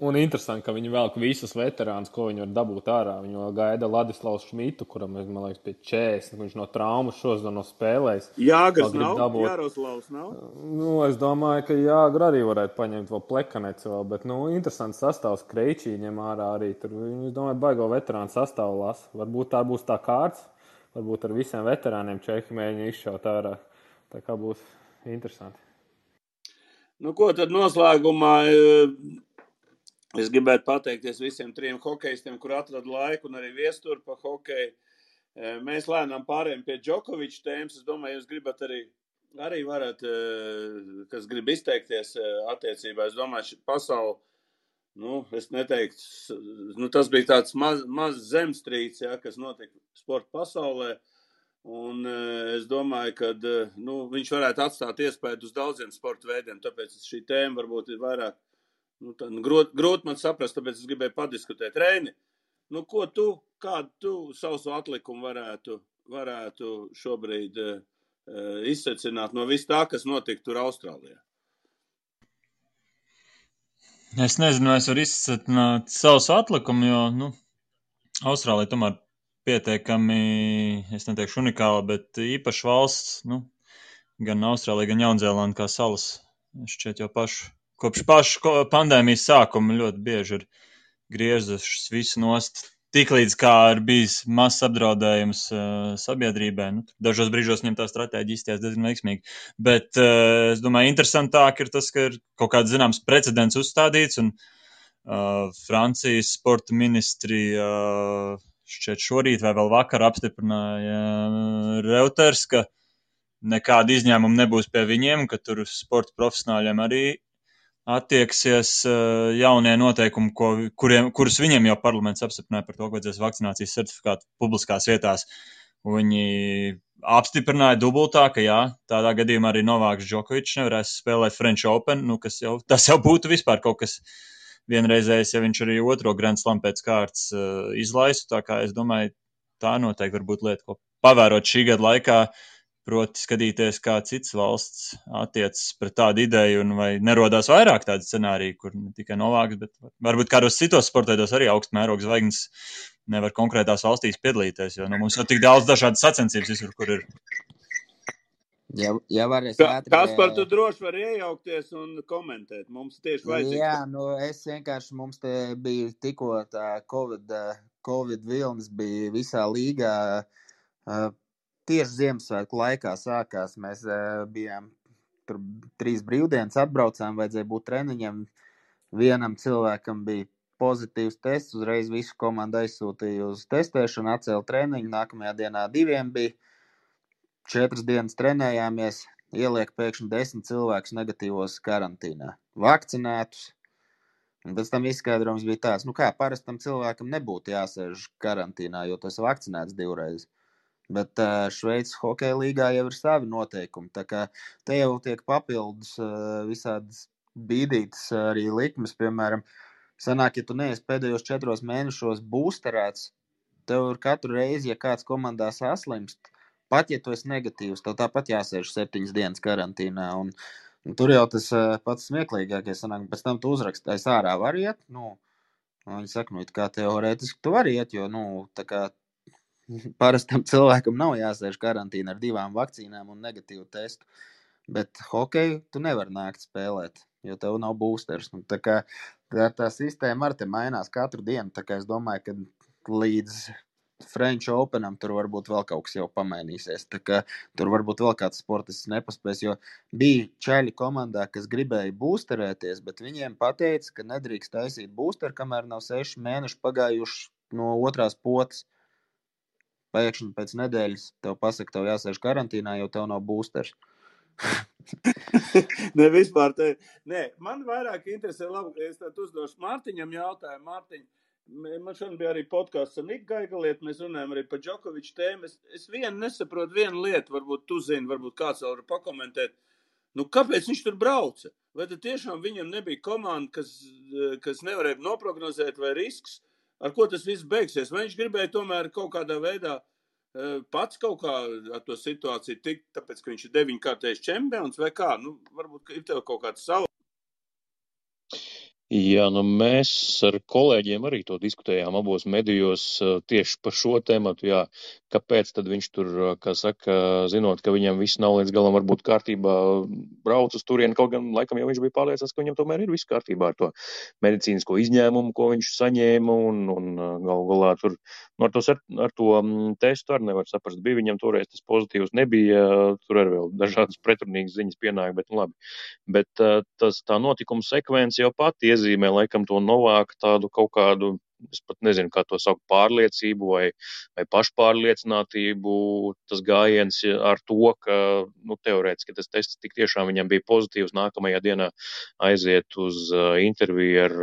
Un interesanti, ka viņi velk visus veterānus, ko viņi var dabūt ārā. Viņi vēl gaida Ladislavs Šmitu, kuram, man liekas, pie 40. Viņš no traumas šos nav spēlējis. Jāgars nav? Jāroslavs nav? Es domāju, ka Jāgar arī varētu paņemt vēl Plekaneci vēl. Bet, interesants sastāvs. Kreičī ņem ārā arī. Tur, es domāju, baigo veterānu sastāvu lasa. Varbūt tā būs tā kārts. Varbūt ar visiem veterāniem Čehi mēģina izšaut ārā. Tā kā būs interesanti. Ko tad noslēgumā es gribētu pateikties visiem 3 hokejistiem, kur atrada laiku un arī viesturu pa hokeju. Mēs lēnām pārējām pie Džokoviča tēmas. Es domāju, jūs gribat arī varat, kas grib izteikties attiecībā. Es domāju, pasauli, es neteiktu, tas bija tāds maz zemstrīds, kas notika sporta pasaulē. Un es domāju, ka viņš varētu atstāt iespēju uz daudziem sporta veidiem, tāpēc šī tēma varbūt ir vairāk grūti man saprast, tāpēc es gribēju padiskutēt. Reini, kādu tu savu atlikumu varētu šobrīd izsecināt no viss tā, kas notika tur Austrālijā? Es nezinu, vai es varu izsacināt savus atlikumu, jo, Austrālija tomēr pietiekami, es neteikšu unikāla, bet īpaša valsts, gan Austrālija, gan Jaunzēlanda kā salas. Šķiet jau kopš pašu pandēmijas sākuma ļoti bieži ir griezušas visu nost. Tiklīdz kā ir bijis mazs apdraudējums sabiedrībai, dažos brīžos viņam tā stratēģija izties diezgan veiksmīgi. Bet es domāju, interesantāk ir tas, ka ir kaut kāds zināms precedents uzstādīts, un Francijas sporta ministrija šķiet šorīt vai vēl vakar apstiprināja Reuters, ka nekāda izņēmuma nebūs pie viņiem, ka tur sporta profesionāļiem arī attieksies jaunie noteikumi, kurus viņiem jau parlaments apstiprināja par to, ka vajadzēs vakcinācijas certifikātu publiskās vietās. Viņi apstiprināja dubultā, ka jā, tādā gadījumā arī Novāks Džokovičs nevarēs spēlēt French Open, tas jau būtu vispār kaut kas vienreizējs, ja viņš arī otro Grand Slam pēc kārtas izlaistu. Tā kā es domāju, tā noteikti var būt lieta, ko pavērot šī gada laikā, proti skatīties, kā cits valsts attiecas pret tādu ideju, un vai nerodās vairāk tādu scenāriju, kur ne tikai Novāks, bet varbūt kādos citos sporteidos arī augstmēroga zvaigznes nevar konkrētās valstīs piedalīties, jo mums jau tik daudz dažādas sacensības visur, kur ir. Ja varēs Kaspar, tu droši vari iejaukties un komentēt. Mums tieši vajadzīgs. Jā, es vienkārši, mums te bija tikko tā Covid vilnis bija visā līgā. Tieši Ziemassvētku laikā sākās. Mēs bijām tur 3 brīvdienas, atbraucām, vajadzēja būt treniņam. Vienam cilvēkam bija pozitīvs tests, uzreiz visu komandu aizsūtīja uz testēšanu, atcēla treniņu. Nākamajā dienā 2 bija. 4 dienas trenējāmies, ieliek pēkšņi 10 cilvēkus negatīvos karantīnā. Vakcinētus. Un pēc tam izskaidrojums bija tāds, kā parastam cilvēkam nebūtu jāsēž karantīnā, jo tas vakcinēts 2 reizes. Bet Šveices hokeja līgā jau ir savi noteikumi. Tā kā te jau tiek papildus visādas bīdītas arī likmes. Piemēram, sanāk, ja tu neesi pēdējos 4 mēnešos būsterēts, tev ir katru reizi, ja kāds komandā saslimst, pat ja tu esi negatīvs, tev tāpat jāsēž 7 dienas karantīnā. Un tur jau tas pats smieklīgākais sanāk, pēc tam tu uzrakstīji, ārā var iet. Viņi saka, kā teorētiski tu vari iet, jo, tā kā parastam cilvēkam nav jāsēž karantīna ar 2 vakcīnām un negatīvu testu, bet hokeju tu nevar nākt spēlēt, jo tev nav boosters. Tā kā tā sistēma arī te mainās katru dienu, tā kā es domāju, ka līdz French Openam tur varbūt vēl kaut kas jau pamainīsies, tā kā tur varbūt vēl kāds sportists nepaspēs, jo bija čaļi komandā, kas gribēja boosterēties, bet viņiem pateica, ka nedrīkst taisīt boosteru, kamēr nav 6 mēneši pagājuši no otrās potes. Pēkšņi pēc nedēļas tev pasaka, tev jāsēž karantīnā, jo tev nav boosters. Ne, vispār te. Nē, man vairāk interesē, labi, es tad uzdošu Mārtiņam jautājumu. Mārtiņ, man šodien bija arī podcasts ar Niku Gaigalieti, mēs runājam arī par Džokoviču tēmu. Es nesaprotu vienu lietu, varbūt tu zini, varbūt kāds vēl var pakomentēt. Kāpēc viņš tur brauca? Vai tad tiešām viņam nebija komanda, kas nevarēja noprognozēt vai risks? Ar ko tas viss beigsies? Vai viņš gribēja tomēr kaut kādā veidā pats kaut kā ar to situāciju tikt, tāpēc, ka viņš ir 9-kārtējs čempions vai kā? Varbūt ir tev kaut kāds savu. Jā, mēs ar kolēģiem arī to diskutējām abos medijos tieši par šo tematu, jā. Kāpēc tad viņš tur, kā saka, zinot, ka viņam viss nav līdz galam varbūt kārtībā, brauc uz turieni, kaut gan laikam jau viņš bija pārliecināts, ka viņam tomēr ir viss kārtībā ar to medicīnisko izņēmumu, ko viņš saņēma, un galu galā tur ar to testu arī nevar saprast. Bija viņam toreiz tas pozitīvs, nebija, tur arī vēl dažādas pretrunīgas ziņas pienāk, bet labi. Bet tā notikuma sekvence jau pati iezīmē laikam to Novāku tādu kaut kādu, es pat nezinu, kā to saukt, pārliecību vai pašpārliecinātību. Tas gājiens ar to, ka, teorētiski tas tests tik tiešām viņam bija pozitīvs, nākamajā dienā aiziet uz interviju ar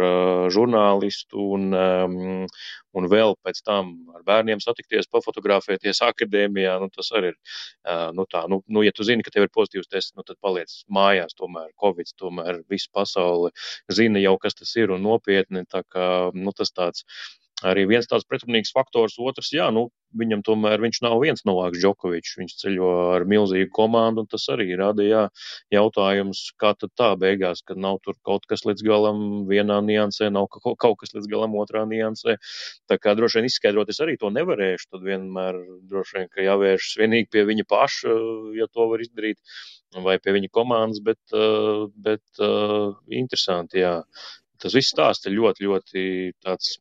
žurnālistu un vēl pēc tam ar bērniem satikties, pafotografēties akadēmijā, tas arī ir, ja tu zini, ka tev ir pozitīvs tests, tad paliec mājās tomēr, Covid, tomēr visa pasaule zina jau, kas tas ir un nopietni, tā kā, tas tāds arī viens tāds pretrunīgs faktors. Otrs, jā, viņam tomēr viņš nav viens Novāks Džokovičs. Viņš ceļo ar milzīgu komandu, un tas arī rada jautājums, kā tad tā beigās, kad nav tur kaut kas līdz galam vienā niansē, nav kaut kas līdz galam otrā niansē. Tā kā droši vien izskaidrot es arī to nevarēšu, tad vienmēr droši vien, ka jāvēršas vienīgi pie viņa paša, ja to var izdarīt, vai pie viņa komandas, bet interesanti, jā. Tas viss stāsts ir ļoti, ļoti tāds,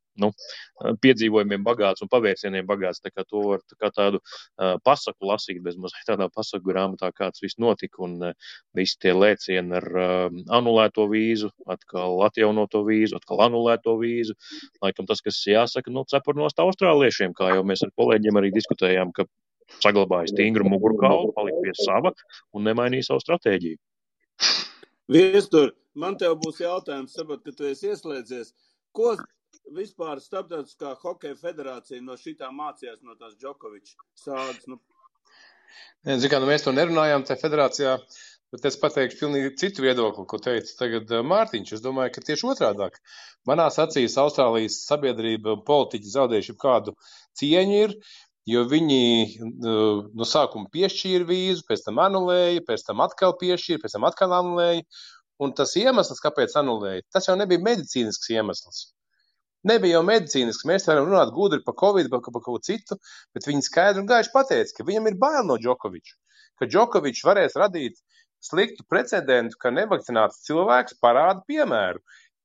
piedzīvojumiem bagāts un pavērsieniem bagāts. Tā kā to var kā tādu pasaku lasīt, bez mazliet tādā pasaku grāmatā, kāds viss notika, un visi tie lēcieni ar anulēto vīzu, atkal atjaunoto vīzu, atkal anulēto vīzu. Laikam tas, kas jāsaka, cepurnost austrāliešiem, kā jau mēs ar kolēģiem arī diskutējām, ka saglabāja stingru mugurkaulu, palika pie sava un nemainīja savu stratēģiju. Viestur, man tev būs jautājums, saprot, ka tu esi ieslēdzies. Ko vispār Starptautiskā hokeja federācija no šitā mācījās no tās Džokoviča sāgas? Mēs to nerunājām tajā federācijā, bet es pateikšu pilnīgi citu viedokli, ko teica tagad Mārtiņš. Es domāju, ka tieši otrādāk. Manās acīs Austrālijas sabiedrība un politiķi zaudējuši kādu cieņu ir, jo viņi no sākuma piešķīra vīzu, pēc tam anulēja, pēc tam atkal piešķīra, pēc tam atkal anulēja. Un tas iemesls, kāpēc anulēja, tas jau nebija medicīnisks iemesls. Nebija jau medicīnisks. Mēs varam runāt gudri par Covid, par kaut ko citu, bet viņi skaidri un gaiši pateica, ka viņam ir bail no Džokoviča, ka Džokovičs varēs radīt sliktu precedentu, ka nevakcināts cilvēks parāda piemēru,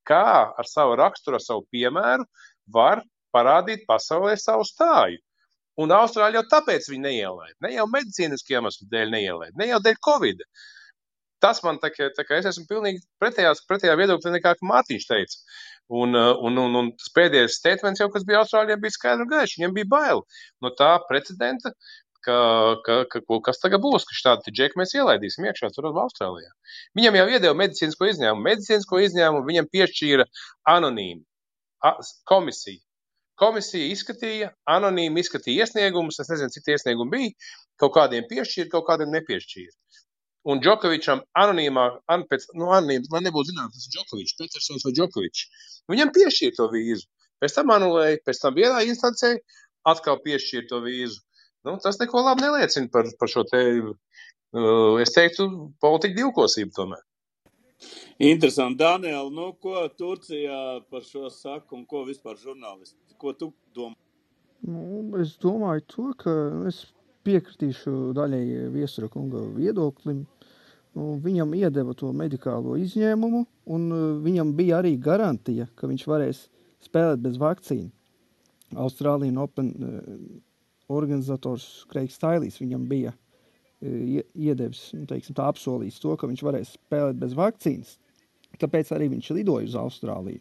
kā ar savu raksturu, ar savu piemēru var parādīt pasaulē savu stāju. Un Austrāļi jau tāpēc viņi neielaid. Ne jau medicīniski iemeslu dēļ neielaid, ne jau dēļ Covid. Tas man tā kā es esmu pilnīgi pretējā viedokļa nekā Mārtiņš teica. Un tas pēdējais statements jau, kas bija Austrāļiem, bija skaidri un gaiši. Viņiem bija bail no tā precedenta, kas tagad būs, ka šādi džeki mēs ielaidīsim iekšā tur Austrālijā. Viņam jau iedeva medicīnisko izņēmumu viņam piešķīra anonīmi komisija. Komisija izskatīja, anonīmi izskatīja iesniegumus, es nezinu, cik iesniegumi bija, kaut kādiem piešķīra, kaut kādiem nepiešķīra. Un Džokovičam anonīms, lai nebūtu zināms, tas ir Džokovičs, Petersons vai Džokovičs. Viņam piešķīra to vīzu. Pēc tam anulēja, pēc tam vienā instancē atkal piešķīra to vīzu. Tas neko labi neliecina par šo te, es teiktu, politiku divkosību tomēr. Interesanti. Daniel, ko Turcijā par šo saka un ko vispār žurnālisti? Ko tu domā? Es domāju to, ka es piekritīšu daļai Viestura kunga viedoklim. Viņam iedeva to medikālo izņēmumu, un viņam bija arī garantija, ka viņš varēs spēlēt bez vakcīnu. Austrālijas Open organizators Kreigs Tailīs viņam bija iedevis, tā apsolījis to, ka viņš varēs spēlēt bez vakcīnas. Tāpēc arī viņš lidoja uz Austrāliju.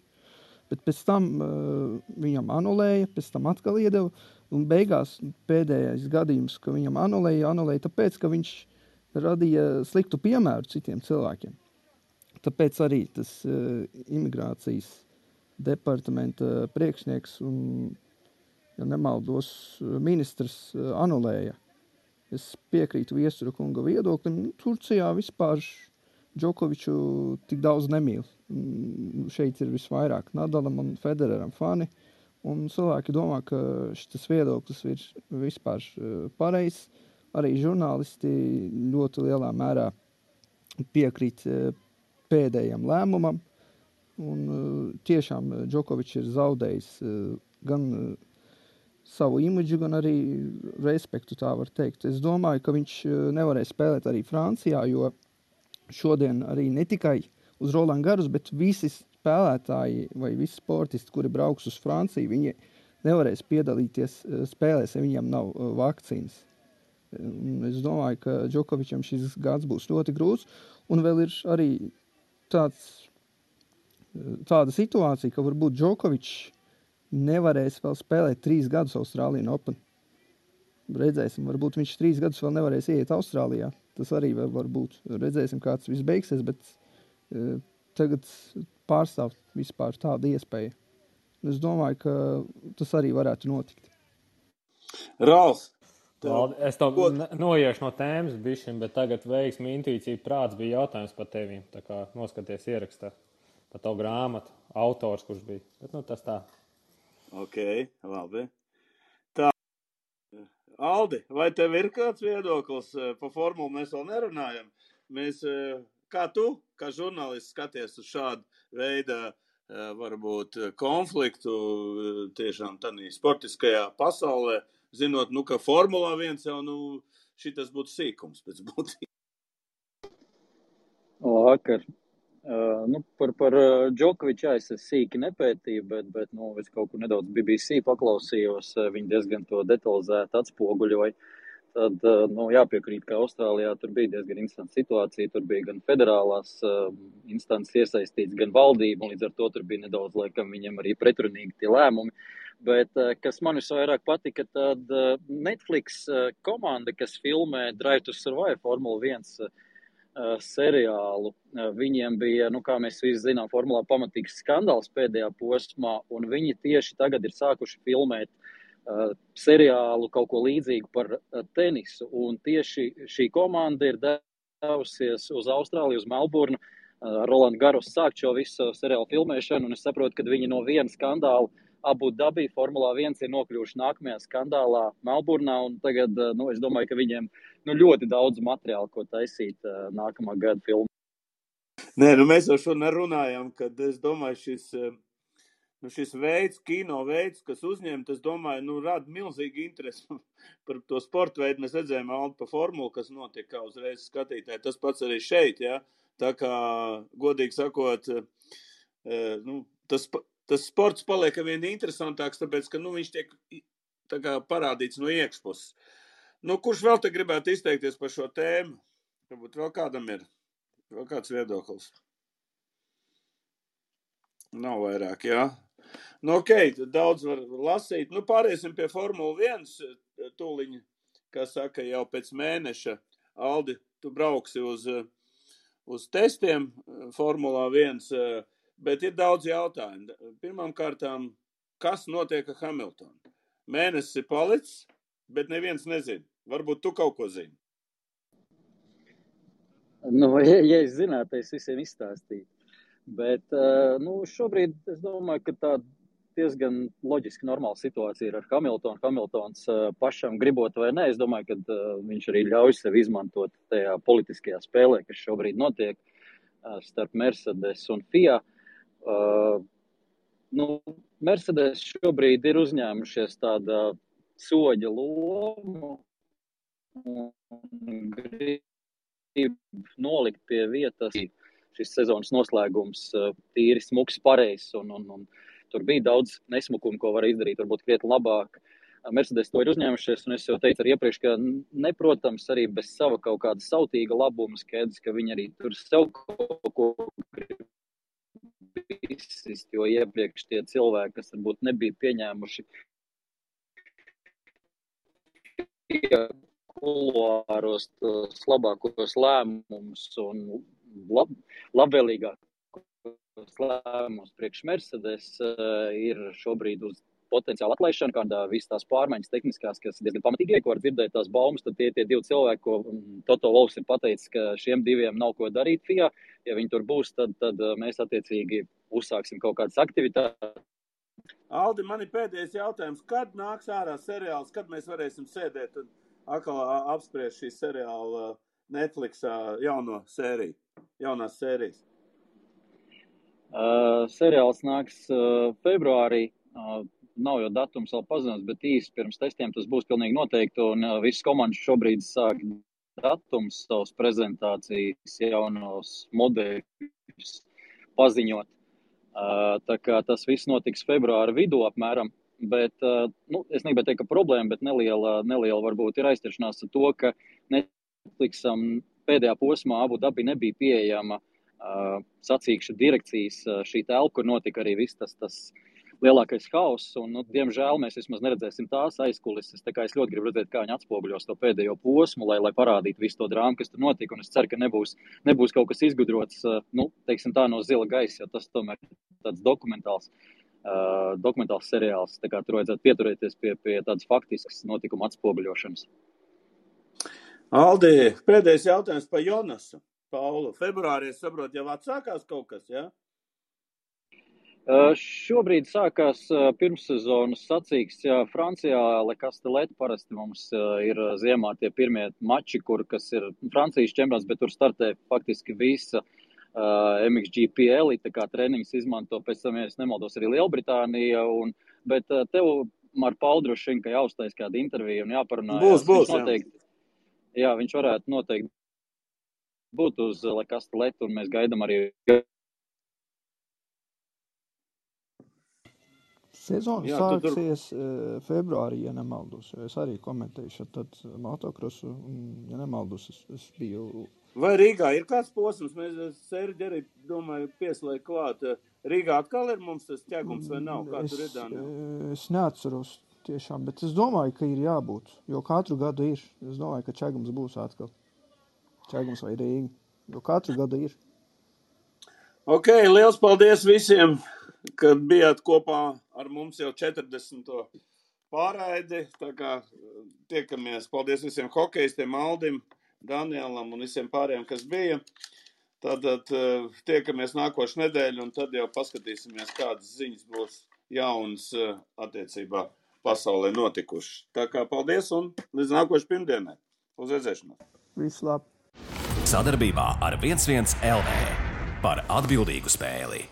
Bet pēc tam viņam anulēja, pēc tam atkal iedeva, un beigās pēdējais gadījums, ka viņam anulēja tāpēc, ka viņš radīja sliktu piemēru citiem cilvēkiem. Tāpēc arī tas imigrācijas departamenta priekšnieks un, ja nemaldos, ministrs anulēja. Es piekrītu Viestura kunga viedoklim. Turcijā vispār Džokoviču tik daudz nemīl. Šeit ir visvairāk Nadalam un Federeram fani. Un cilvēki domā, ka šis viedoklis ir vispār pareizs. Arī žurnālisti ļoti lielā mērā piekrīt pēdējam lēmumam. Un tiešām Džokovičs ir zaudējis gan savu imidžu, gan arī respektu, tā var teikt. Es domāju, ka viņš nevarēs spēlēt arī Francijā, jo šodien arī ne tikai uz Roland Garros, bet visi spēlētāji vai visi sportisti, kuri brauks uz Franciju, viņi nevarēs piedalīties spēlēs, ja viņiem nav vakcīnas. Es domāju, ka Džokovičam šis gads būs ļoti grūts, un vēl ir arī tāda situācija, ka varbūt Džokovičs nevarēs vēl spēlēt 3 gadus Austrālijas Open. Redzēsim, varbūt viņš 3 gadus vēl nevarēs ieiet Austrālijā. Tas arī var būt. Redzēsim, kā tas viss beigsies, bet tagad pārstāv vispār tāda iespēja. Es domāju, ka tas arī varētu notikt. Ralf! Es to noiešu no tēmas bišķiņ, bet tagad veiksmi, intuīcija, prāts bija jautājums par tevīm. Tā kā noskaties ierakstā par tavu grāmatu, autors, kurš bija. Bet tas tā. Ok, labi. Tā, Aldi, vai tev ir kāds viedoklis pa formulu? Mēs vēl nerunājam. Kā tu, kā žurnālists, skaties uz šādu veidu varbūt konfliktu tiešām tādā sportiskajā pasaulē, zinot, ka Formulā 1 jau šitas būtu sīkums pēc būtības. Vakar. Par Džokoviču es sīki nepētīju, bet es kaut kur nedaudz BBC paklausījos, viņi diezgan to detalizēti atspoguļoja. Tad, jāpiekrīt, ka Austrālijā tur bija diezgan interesanta situācija, tur bija gan federālās instances iesaistīts, gan valdība, un līdz ar to tur bija nedaudz, laikam, viņiem arī pretrunīgi tie lēmumi. Bet, kas man visvairāk patika, tad Netflix komanda, kas filmē Drive to Survive Formula 1 seriālu, viņiem bija, kā mēs visi zinām, formulā pamatīgs skandāls pēdējā posmā, un viņi tieši tagad ir sākuši filmēt seriālu kaut ko līdzīgu par tenisu, un tieši šī komanda ir devusies uz Austrāliju, uz Melburnu, Roland Garros sākt šo visu seriālu filmēšanu, un es saprotu, ka viņi no viena skandāla Abu Dabī Formulā 1 ir nokļuvuši nākamajā skandālā Melburnā, un tagad, es domāju, ka viņiem ļoti daudz materiālu, ko taisīt nākamā gada filmu. Nē, mēs jau šodien runājam, kad es domāju, šis veids, kino veids, kas uzņemt, es domāju, rada milzīgi interesi par to sportu veidu. Mēs redzējām Aldi pa formulu, kas notiek kā uzreiz skatītāji. Tas pats arī šeit, ja? Tā kā, godīgi sakot, tas sports paliek vien interesantāks, tāpēc, ka, viņš tiek tā kā parādīts no iekšpuses. Kurš vēl te gribētu izteikties par šo tēmu? Varbūt vēl kādam ir vēl kāds viedoklis? Nav vairāk, jā. Ok, daudz var lasīt. Pāriesim pie Formula 1 tūliņa, kā saka, jau pēc mēneša. Aldi, tu brauksi uz testiem Formulā 1, bet ir daudz jautājumu. Pirmām kārtām, kas notiek ar Hamiltonu? Mēnesis ir palicis, bet neviens nezina. Varbūt tu kaut ko zini. Ja es zinātu, es visiem izstāstītu. Bet, šobrīd es domāju, ka tā diezgan loģiski normāla situācija ir ar Hamiltonu. Hamiltons pašam gribot vai ne, es domāju, ka viņš arī ļauj sev izmantot tajā politiskajā spēlē, kas šobrīd notiek starp Mercedes un FIA. Mercedes šobrīd ir uzņēmušies tāda soģa lomu un grib nolikt pie vietas šis sezonas noslēgums tīri smuks pareizs un tur bija daudz nesmukumu, ko var izdarīt, varbūt krietni labāk. Mercedes to ir uzņēmušies, un es jau teicu arī iepriekš, ka neprotams arī bez sava kaut kāda sautīga labuma skaidrs, ka viņi arī tur sev kaut ko grib izsist, jo iepriekš tie cilvēki, kas varbūt nebija pieņēmuši kuluāros tos labākos lēmumus un labvēlīgākos lēmumus priekš Mercedes ir šobrīd uz potenciālu atlaišanu, kādā visas tās pārmaiņas tehniskās, kas diezgan pamatīgi ko var dzirdēt tās baumas, tad tie divi cilvēki, ko Toto Wolffs ir pateicis, ka šiem diviem nav ko darīt FIA. Ja viņi tur būs, tad mēs attiecīgi uzsāksim kaut kādas aktivitātes. Aldi, man ir pēdējais jautājums. Kad nāks ārā seriāls, kad mēs varēsim sēdēt un atkal apspriest šī seriāla Netflixā jaunās sērijas? Seriāls nāks februārī. Nav jau datums vēl pazināts, bet īsti pirms testiem tas būs pilnīgi noteikti, un visas komandas šobrīd sāk datums savas prezentācijas jaunos modeļus paziņot. Tā kā tas viss notiks februāra vidū apmēram, bet, es negribētu teikt, ka problēma, bet neliela varbūt ir aizķeršanās ar to, ka Netflixam pēdējā posmā Abu Dabī nebija pieejama sacīkšu direkcijas šī telpa, kur notika arī viss tas lielākais hauss, un, diemžēl, mēs vismaz neredzēsim tās aizkulises, tā kā es ļoti gribu redzēt, kā viņi atspoguļos to pēdējo posmu, lai parādītu visu to drāmu, kas tur notika, un es ceru, ka nebūs kaut kas izgudrots, teiksim tā, no zila gaisa, jo tas tomēr tāds dokumentāls seriāls, tā kā tur vajadzētu pieturēties pie tādas faktiskas notikuma atspoguļošanas. Aldi, pēdējais jautājums par Jonasu. Paulu, februārī, es saprotu, jau atsākās kaut kas, jā? Šobrīd sākās pirmssezonas sacīks Francijā. Le Castellet parasti mums ir ziemā tie pirmie mači, kas ir Francijas čempionāts, bet tur startē faktiski visa MXGP elite, kā treniņus izmanto, pēc tam, ja es nemaldos, arī Lielbritānija. Bet tev, ar Paulu droši vien, ka jāuztais kāda intervija un jāparunājās. Būs, jā, viņš varētu noteikti būt uz Le Castellet, un mēs gaidām arī. Sezona sāksies februārī, ja nemaldos. Es arī komentēju tad motokrosu, ja nemaldos, es biju. Vai Rīgā ir kāds posms? Mēs Serģi arī, domāju, pieslēgt klāt. Rīgā atkal ir mums tas ķegums vai nav? Kā tur ir, Dānijā? Es neatceros tiešām, bet es domāju, ka ir jābūt, jo katru gadu ir. Es domāju, ka ķegums būs atkal. Ķegums vai Rīga, jo katru gadu ir. Ok, liels paldies visiem, kad bijāt kopā ar mums jau 40. pārraidi. Tā kā tiekamies. Paldies visiem hokejistiem, Aldim, Danielam un visiem pārējiem, kas bija. Tad tiekamies nākošu nedēļu un tad jau paskatīsimies, kādas ziņas būs jaunas attiecībā pasaulē notikušas. Tā kā paldies un līdz nākošu pirmdienai. Uz redzēšanos. Visu labi. Sadarbībā ar 11 LV par atbildīgu spēli.